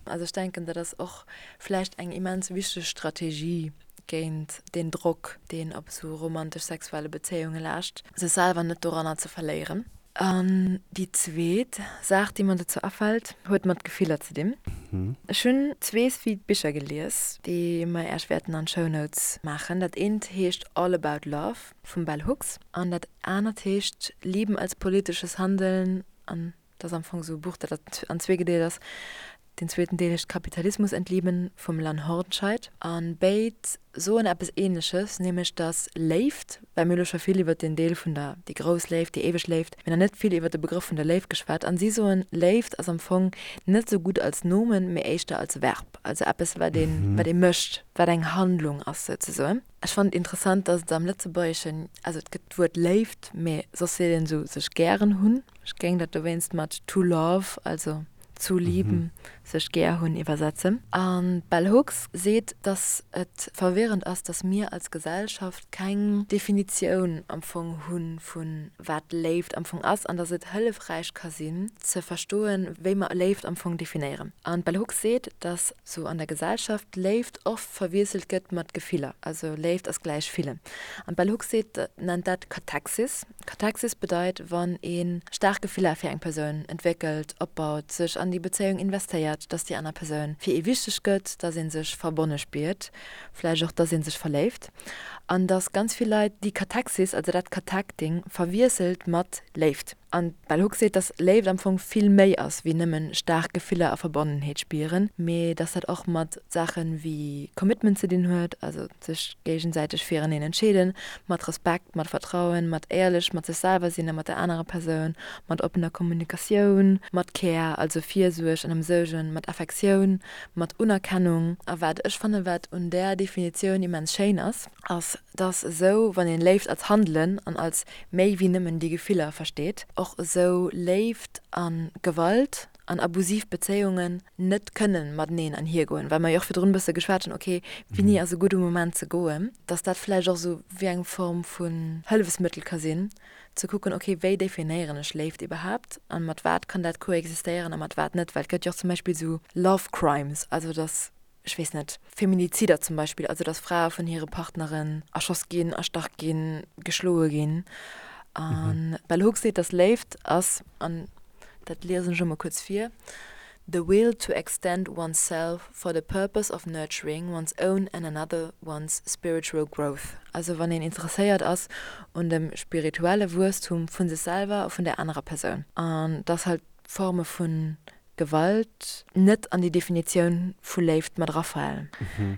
Also ech denken, dat ass och vläicht eng immens wichteg Strategie géint deen Drock, deen op esou romantesch-sexuelle Bezéiunge laascht, sech selwer net doranner ze verléieren. An déi zweet Saach, déi mer dozou afält, huet mat Gefiller ze dinn. Ech hunn zwee sweet Bicher gelies, déi mer Äech wäerten an d'Show Notes maachen. Dat eent heescht All About Love vum Bell Hooks an dat anert heescht Lieben als politisches Handeln an dat ass am Fong esou e Buch, dat an zwee gedeelt ass. Deen zweeten Deel heescht Kapitalismus entlieben vum Lann Hornscheid. A béid soen eppes Ähnleches, nämlech dass Léift, well mir hu lo scho vill iwwert den Deel vun der, déi grouss Léift, déi éiweg Léift, mee nach net vill iwwert de Begrëff vun der Léift geschwat. An si soen, Léift ass am Fong net esou gutt als Nomen, mee éischter als Verb, also eppes wat een, wat ee mécht, wat eng Handlung ass souzesoen. Ech fannen et interessant, dass et am Lëtzebuergeschen, also et gëtt d'Wuert Léift, mee soss seet een esou sech gären hunn. Ech géing dat dowéinst mat to love, also zu lieben, sech gär hunn, iwwersetzen. An d'Bell Hooks seet, dass et verwirrend ass, dass mir als Gesellschaft keng Definitioun am Fong hu vu wat Léift am Fong ass an dass et hëllefräich ka sinn ze verstoen, wéi mer Léift am Fong definéieren. An d'Bell Hooks seet, dass sou an der Gesellschaft Léift oft verwiesselt gëtt mat Gefiller, also Léift ass gläich fillen. An d'Bell Hooks seet, nennt dat Cathexis. Cathexis bedeit, wann ee staark Gefiller fir eng Persoun entwéckelt, opbaut, sech an déi Bezéiung investéiert, dass déi aner Persoun fir ee wichteg gëtt, dass ee sech verbonne spiert, vläicht och, dass ee sech verléift. An dass ganz vill Leit déi Cathexis, also dat Cathecting, verwiesselt mat Léift. An d'Bell Hooks seet, dass Léift am Fong vill méi ass wéi nëmmen staark Gefiller a Verbonnenheet spieren, mee dass dat och mat Saache wéi Commitment ze dinn huet, also sech géigesäiteg fireneen entscheeden, mat Respekt, mat Vertrauen, mat éierlech mat sech selwer sinn a mat der anerer Persoun, mat oppener Kommunikatioun, mat Care, also Virsuerg an Ëmsuergen, mat Affektioun, mat Unerkennung. A wat ech fannen, wat un där Definitioun immens schéin ass, ass, dass esou, wann een Léift als Handelen an als méi wéi nëmmen déi Gefiller versteet, och esou Léift a Gewalt an abusiv Bezéiungen net kënnen mateneen anhiergoen, well mer jo och virdrun e bësse geschwat hunn, ok, wéini ass e gudde Moment ze goen, dass dat vläicht och esou wéi eng Form vun Hëllefsmëttel ka sinn, ze kucken, ok, wéi definéieren ech Léift iwwerhaapt a mat wat kann dat koexistéieren a mat wat net, well et gëtt jo och zum Beispill esou Love Crimes, also dass ech weess net, Feminizider zum Beispill, also dass Frae vun hire Partneren erschoss ginn, erstach ginn, geschloe ginn. An d'Bell Hooks seet, dass Léift ass, an dat liesen ech elo mol kuerz vir, The will to extend oneself for the purpose of nurturing one's own and another one's spiritual growth. Also wann een interesséiert ass un dem spirituelle Wuesstum vu sech selwer a vun där anerer Persoun. An dass halt Forme vu Gewalt net an déi Definitioun vu Léift mat erafalen.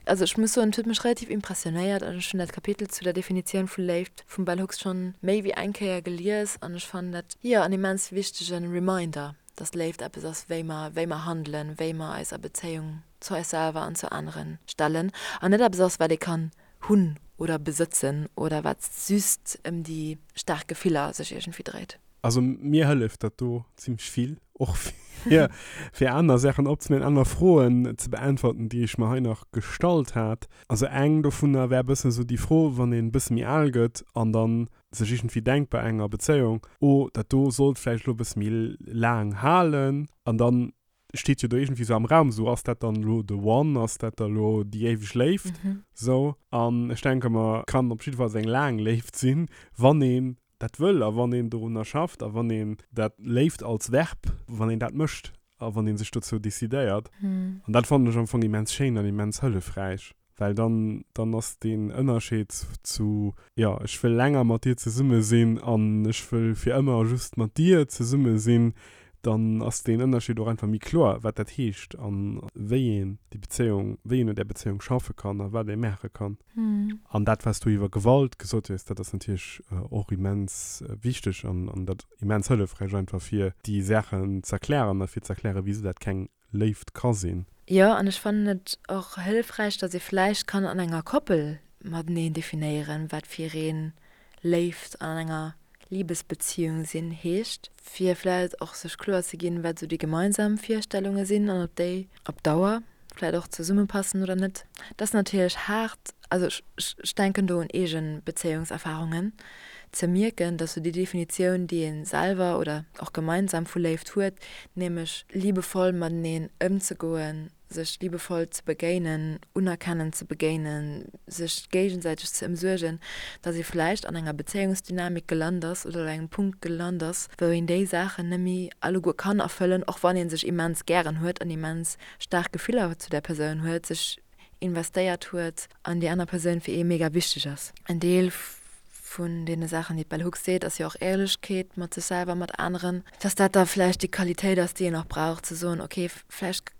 Also ech muss soen, et huet mech relativ impressionéiert an ech hunn dat Kapitel zu der Definitioun vu Léift vum Bell Hooks schonn méi wéi eng Kéier gelies an ech fannen dat, jo, en immens wichtege Reminder, dass Léift eppes ass, wéi mer, wéi mer handelen, wéi mer eis a Bezéiung zu eis selwer an zu anere stellen an net eppes ass, wat ee kann hunn oder besëtzen oder wat just ëm déi staark Gefiller sech iergendwéi dréit. Also mir hëlleft dat do zimmlech vill. och fir, fir aner Saachen opzeméien, aner Froen ze beäntwerten, déi ech mer hei nach gestallt hat. Also eng dovunner wär e bëssen esou déi Fro, wann een e bësse méi al gëtt an dann sech iergendwéi denkt bei enger Bezéiung, oh dat do sollt vläicht elo e bësse méi laang halen an dann steet jo do iergendwéi sou am Raum, sou ass dat dann elo the one, ass dat da lo déi éiweg Léift, sou. An ech denke mer, kann op jiddefalls eng laang Léift sinn, wann een dat wëll a wann een dorunner schafft a wann een dat Léift als Verb, wann een dat mécht a wann ee sech dozou decidéiert. An dat fannen ech am Fong immens schéin an immens hëllefräich. Well dann, dann ass deen Ënnerscheed zu, jo, ech wëll länger mat dir zesumme sinn an ech wëll fir ëmmer just mat dir zesumme sinn, dann ass deen Ënnerscheed och einfach méi kloer, wat dat heescht a wéi een déi Bezéiung, wéi een un där Bezéiung schaffe kann a wat ee maache kann. An dat, wat s du iwwer Gewalt gesot hues, dat ass natierlech och immens wichteg an dat immens hëllefräich einfach fir déi Saachen z'erklären a fir z'erklären, wisou dat keng Léift ka sinn. Jo, an ech fannen et och hëllefräich, datt ee vläicht kann an enger Koppel mateneen definéieren, wat fir een Léift an enger Libesbeziehung sinn heescht, fir vläicht och sech kloer ze ginn, wat esou déi gemeinsam Virstellunge sinn an ob déi op Dauer vläicht och zesummepassen oder net. Dat ass natierlech haart, also ech denken do un eege Bezéiungserfarungen, ze mierken, dass sou déi Definitioun, déi ee selwer oder och gemeinsam vu Léift huet, nämlech liebevoll mateneen ëmzegoen, sech liebevoll ze begéinen, unerkennend ze begéinen, sech géigesäiteg ze ëmsuergen, dass ee vläicht an enger Bezéiungsdynamik gelant ass oder op engem Punkt gelant ass, wou een déi Saachen net méi alleguer kann erfëllen, och wann ee sech immens gären huet an immens staark Gefiller zu där Persoun huet, sech investéiert huet an déi aner Persoun fir ee mega wichteg ass. En Deel vun deene Saachen, déi d'Bell Hooks seet, ass jo och Éierlechkeet mat sech selwer, mat aneren, dass dat da vläicht déi Qualitéit ass, déi een och brauch, ze soen, ok, vläicht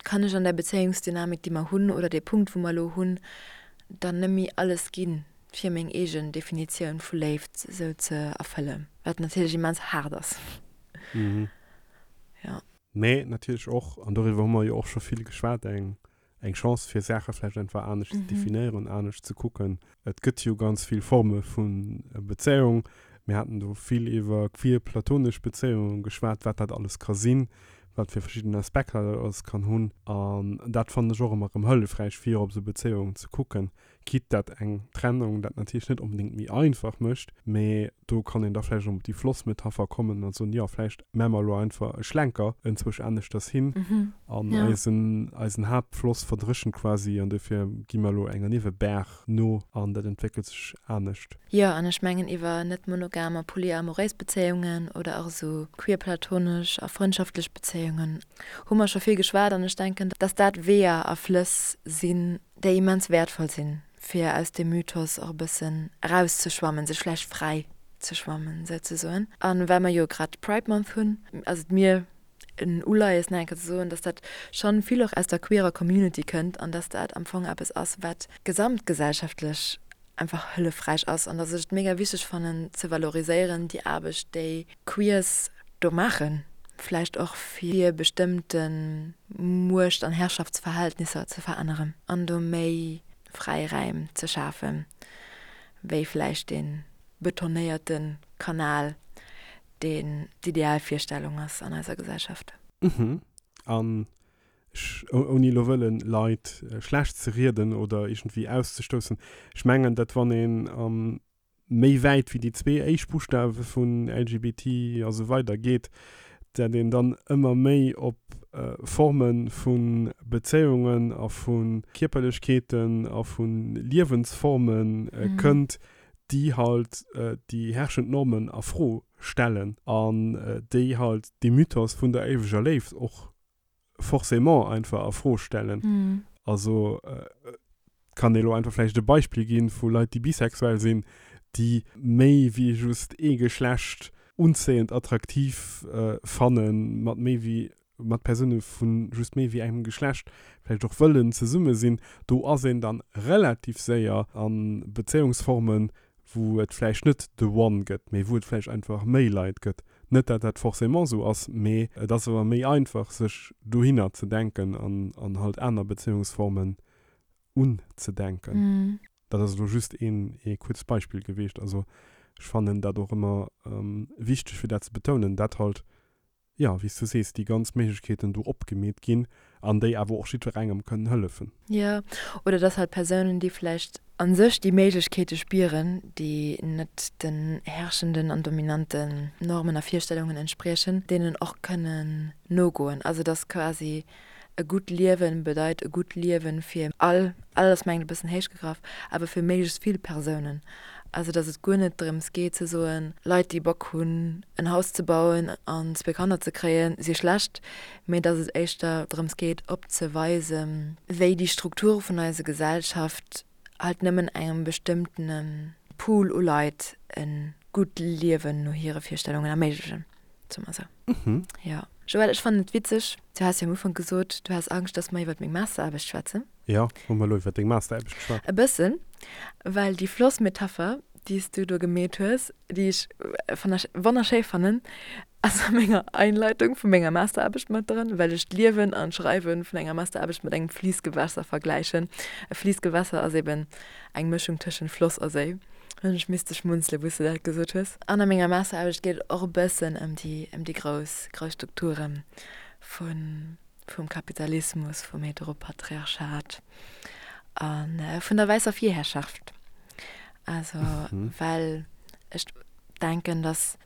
kann ech an där Bezéiungsdynamik, déi mer hunn, oder dee Punkt, wou mer elo hunn, dann net méi alles ginn, fir meng eegen Definitioun vu Léift esou ze erfëllen, wat natierlech immens haart ass. Jo. Mee natierlech och, an doriwwer hu mer jo och scho vill geschwat, eng, eng Chance fir Saache vläicht einfach anescht ze definéieren, anescht ze kucken. Et gëtt jo ganz vill Forme vu Bezéiung. Mir haten do vill iwwer queer platonesch Bezéiunge geschwat, wat dat alles ka sinn, wat fir verschidden Aspekter dat alles kann hunn. An dat fannen ech och ëmmer erëm hëllefräich, fir op esou Bezéiungen ze kucken. Quitte dat eng Trennung dat natierlech net onbedéngt méi einfach mécht, mee do kann een da vläicht erëm op déi Flossmetapher kommen a soen, jo, vläicht maache mer elo einfach e Schlenker enzwousch aneschters hin an eisen, eisen Haaptfloss verdréchent quasi an dofir gi mer elo enger Niewebaach no an dat entwéckelt sech anescht. Jo, an ech mengen iwwer net-monogam a polyamoréis Bezéiungen oder och esou queer-platonesch a frëndschaftlech Bezéiungen hu mer scho vill geschwat an ech denken, dass dat Weeër a Flëss sinn, déi immens wäertvoll sinn, fir aus deem Mythos och e bëssen erauszeschwammen, sech vläicht fräi ze schwammen, souzesoen. A well mer jo grad Pride Month hunn, ass et mir en Uleies, nach eng Kéier ze soen, dass dat schonn vill och aus der queerer Community kënnt an dass dat am Fong eppes ass, wat gesamtgesellschaftlech einfach hëllefräich ass an dass ech et mega wichteg fannen ze valoriséieren, déi Aarbecht, déi Queers do maachen, vläicht och fir bestëmmte Muecht an Herrschaftsverhältnisser ze veränneren an do méi Fräiräim ze schafen, wéi vläicht dee betonéierte Kanal, deen d'Idealvirstellung ass an eiser Gesellschaft. Mhm. An ech, ouni elo wëllen Leit schlecht ze rieden oder iergendwéi auszestoussen, ech mengen, datt wann een méi wäit wéi déi zwee éischt Buschtawe vun LGBT a sou weider geet, dat een dann ëmmer méi op Forme vu Bezéiungen a vu Kierperlechkeeten a vu Liewensforme kënnt, déi halt déi herrschend Normen a Fro stellen an déi halt dee Mythos vun der éiweger Léift och forcément einfach a Fro stellen. Also kann ee lo einfach vläicht e Beispill ginn vu Leit, déi bisexuell sinn, déi méi wéi just ee Geschlecht unzéiend, attraktiv fannen, mat méi wéi, mat Persoune vu just méi wéi engem Geschlecht vläicht och wëllen zesumme sinn. Do ass een dann relativ séier a Bezéiungsformen, wou et vläicht net the one gëtt, mee wou et vläicht einfach méi Leit gëtt. Net dat dat forcément esou ass, mee et ass awer méi einfach sech dohinner ze denken an an halt aner Bezéiungsformen unzedenken. Dat ass elo just een ee kuerzt Beispill gewiescht. Also ech fannen dat och ëmmer wichteg fir dat ze betounen, dat halt. Jo, wéi s du sees, déi ganz Méiglechkeeten do opgemeet ginn an déi awer och jiddwerengem kënnen hëllefen. Jo, oder dass halt Persounen, déi vläicht a sech déi Méiglechkeete spieren, déi net den herrschenden an dominanten Normen a Virstellungen entspriechen, deenen och kënnen nogoen. Also dass quasi e gutt Liewen bedeit e gutt Liewen fir all, all ass mengen e bëssen héich gegraff, awer fir méiglechst vill Persounen. Also datt et guer net drëms geet ze soen, Leit déi Bock hunn en Haus ze bauen an zwee Kanner ze kréien, si schlecht, mee datt et éischter drëms geet opzeweisen, wéi déi Strukture vun eiser Gesellschaft halt nëmmen engem bestëmmtene Pool u Leit e gutt Liewen no hire Virstellungen erméiglechen. Soe mer esou. Jo. Joël, ech fannen et witzeg, du has jo am Ufank gesot, du has Angscht, dass mer iwwert meng Masteraarbecht schwätzen. Jo, hu mer elo iwwert deng Masteraarbecht geschwat? E bëssen, well déi Flossmetapher, déi s du do gemeet hues, déi ech wonnerschéi fannen, ass a menger Einleitung vu menger Masteraarbecht mat dran, well ech d'Liewen an d'Schreiwe vun enger Masteraarbecht mat engem Fliissgewässer vergläichen. E Fliissgewässer ass eben eng Mëschung tëschent Floss a Séi. Hunn ech misste schmunzelen, wou s de dat gesot hues. An a menger Masteraarbecht geet et och e bëssen ëm déi, ëm déi grouss, grouss Strukture vun, vum Kapitalismus, vum Heteropatriarchat a vun der wäisser Virherrschaft. Also, well ech denken, dass,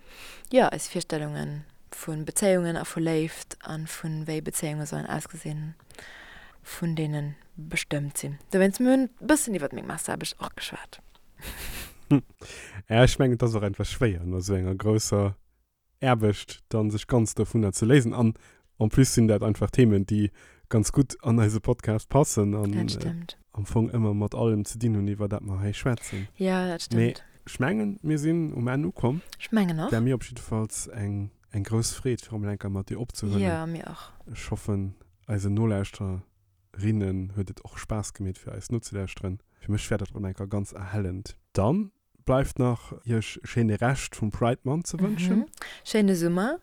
jo, eis Virstellunge vu Bezéiungen a vu Léift a vu wéi Bezéiunge sollen ausgesinn, vun deene bestëmmt sinn. Dowéinst, mir hunn e bëssen iwwert meng Masteraarbecht och geschwat. Ja, ech mengen, et ass och einfach schwéier, no esou enger grousser Aarbecht dann sech ganz dovunner ze léisen. An en plus sinn dat einfach Themen, déi ganz gutt an eise Podcast passen an Dat stëmmt. am Fong ëmmer mat allem ze dinn hunn, iwwer dat mer hei schwätzen. Ja, dat Mee stëmmt. ech mengen, mir sinn um Enn ukomm. Ech mengen och. War mir op jiddefalls eng, eng grouss Freed, fir emol eng Kéier mat dir opzehuelen. Jo, mir och. Ech hoffen, eisen Nolauschterer rinnen huet et och Spaass gemeet fir eis nozelauschteren. Fir mech war dat rem enker ganz erhellend. Dann bleift nach iech e schéine Rescht vum Pride Month ze wënschen. Schéine Summer,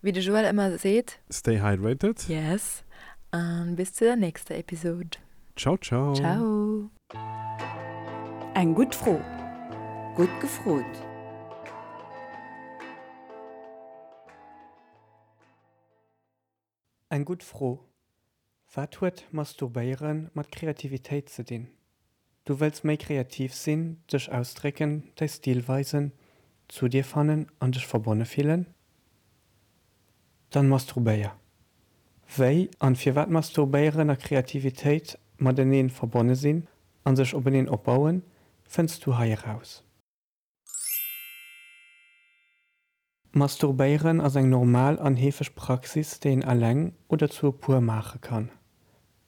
wéi de Joël ëmmer seet. Stay hydrated. Yes, an bis zu der nächster Episode. Ciao ciao. Ciao. Eng gutt Fro. Gutt gefrot. Eng gutt Fro, Wat huet Masturbéiere mat Kreativitéit ze dinn? Du wëlls méi kreativ sinn, dech ausdrécken, däi Stil weisen, zu dir fannen an dech verbonne fillen? Dann masturbéier! Wéi an firwat Masturbéieren a Kreativitéit mateneen verbonne sinn an sech openeen opbauen, fënns du hei eraus. Masturbéieren ass eng normal an heefeg Praxis, déi een eleng oder zu e puer maache kann.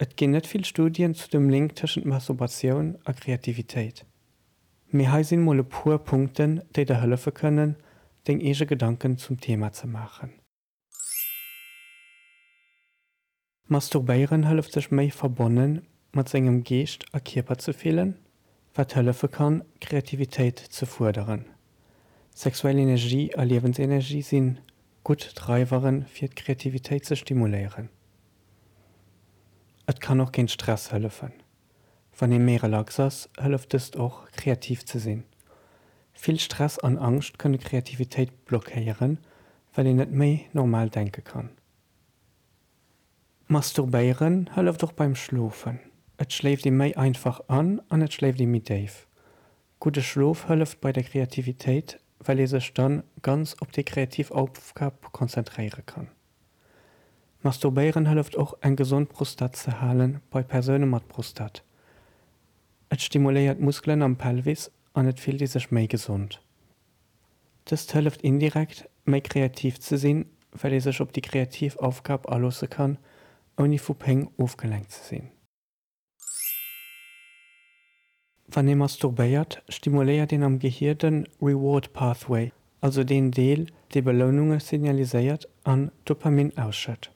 Et ginn net vill Studien zu dem Link tëschent Masturbatioun a Kreativitéit. Mee hei sinn mol e puer Punkten, déi der hëllefe kënnen, deng eege Gedanken zum Thema ze maachen. Masturbéieren hëlleft sech méi verbonne mat sengem Geescht a Kierper ze fillen, wat hëllefe kann, Kreativitéit ze fuerderen. Sexuell Energie a Liewensenergie si gutt Dreiwere fir d'Kreativitéit ze stimuléieren. Et kann och géint Stress hëllefen. Wann ee méi relax ass, hëlleft dëst och, kreativ ze sinn. Vill Stress an Angscht kënne Kreativitéit blockéieren, well een net méi normal denke kann. Masturbéieren hëlleft och beim Schlofen. Et schléift ee méi einfach an an et schléift ee méi déif. Gudde Schlof hëlleft bei der Kreativitéit, well ee sech dann ganz op déi kreativ Aufgab konzentréiere kann. Masturbéieren hëlleft och eng gesond Prostat ze halen bei Persoune mat Prostat. Et stimuléiert d'Muskelen am Pelvis an et fillt ee sech méi gesond. Dëst hëlleft indirekt, méi kreativ ze sinn, well ee sech op déi kreativ Aufgab aloosse kann, ouni vu Péng ofgelenkt ze sinn. Wann ee masturbéiert, stimuléiert een am Gehier de Reward Pathway, also deen Deel, dee Beloununge signaliséiert an Dopamin ausschëtt.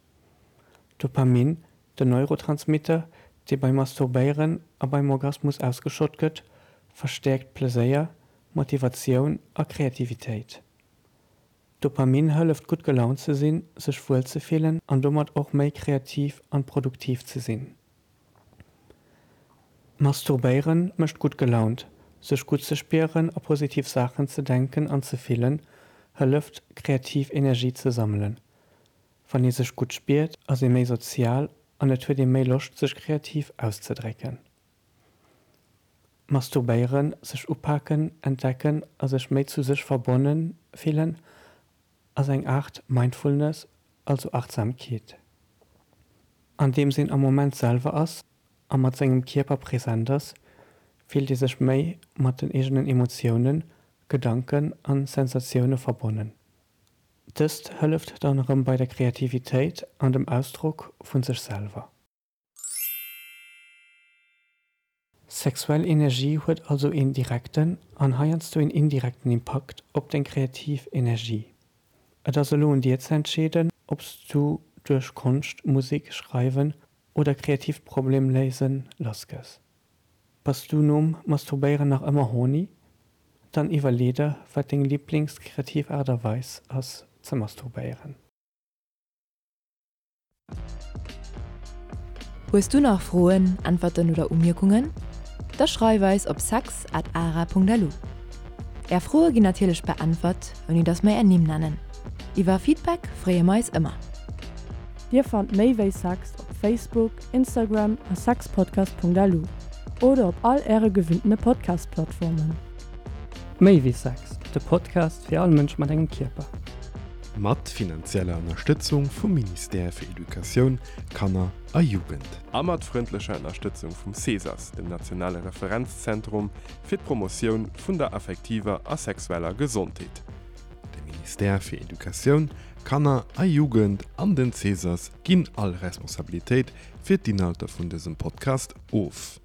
Dopamin, den Neurotransmitter, dee beim Masturbéieren a beim Orgasmus ausgeschott gëtt, verstäerkt Pleséier, Motivatioun a Kreativitéit. Dopamin hëlleft gutt gelaunt ze sinn, sech wuel ze fillen an domat och méi kreativ an produktiv ze sinn. Masturbéieren mécht gutt gelaunt, sech gutt ze spieren a positiv Saachen ze denken an ze fillen hëlleft kreativ Energie ze sammelen. Wann ee sech gutt spiert, ass ee méi sozial an et huet ee méi Loscht sech kreativ auszedrécken. Masturbéieren, sech upaken, entdecken a sech méi zu sech verbonne fillen ass eng Aart Mindfulness, also Achtsamkeet. Andeems een am Moment selwer ass a mat sengem Kierper present ass, fillt ee sech méi mat den eegenen Emotiounen, Gedanken an Sensatioune verbonnen. Dëst hëlleft dann erëm bei der Kreativitéit an dem Ausdrock vun sech selwer. Sexuell Energie huet also een direkten an heiansdo een indirekten Impakt op deng kreativ Energie. Et ass elo un dir ze entscheeden, ob s du duerch Konscht, Musek, Schreiwen oder kreatiivt Problemléisen lass gëss. Bass du nom Masturbéieren nach ëmmer horny? Dann iwwerlee der, wat deng Liblings-kreativ Aart a Weis ass ze masturbéieren. Hues du nach Froen, Äntwerten oder Umierkungen? Da schreif eis op sex at ara.lu. Är Froe ginn natierlech beäntwert, ouni dass mer är Nimm nennen. Iwwer Feedback freeë mer eis ëmmer. Dir fannt méi wéi Sex op Facebook, Instagram a sexpodcast.lu oder op all äre gewinntene Podcast-Plattformen. Méi wéi Sex, de Podcast fir all Mënsch mat engem Kierper. Mat finanzieller Ënnerstëtzung vum Ministère fir Educatioun, Kanner a Jugend. A mat frëndlecher Ënnerstëtzung vum CESAS, dem nationale Referenzzentrum fir d'Promotioun vun der affektiver a sexueller Gesondheet. De Ministère fir Educatioun, Kanner a Jugend an den CESAS ginn all Responsabilitéit fir d'Inhalter vun dësem Podcast of.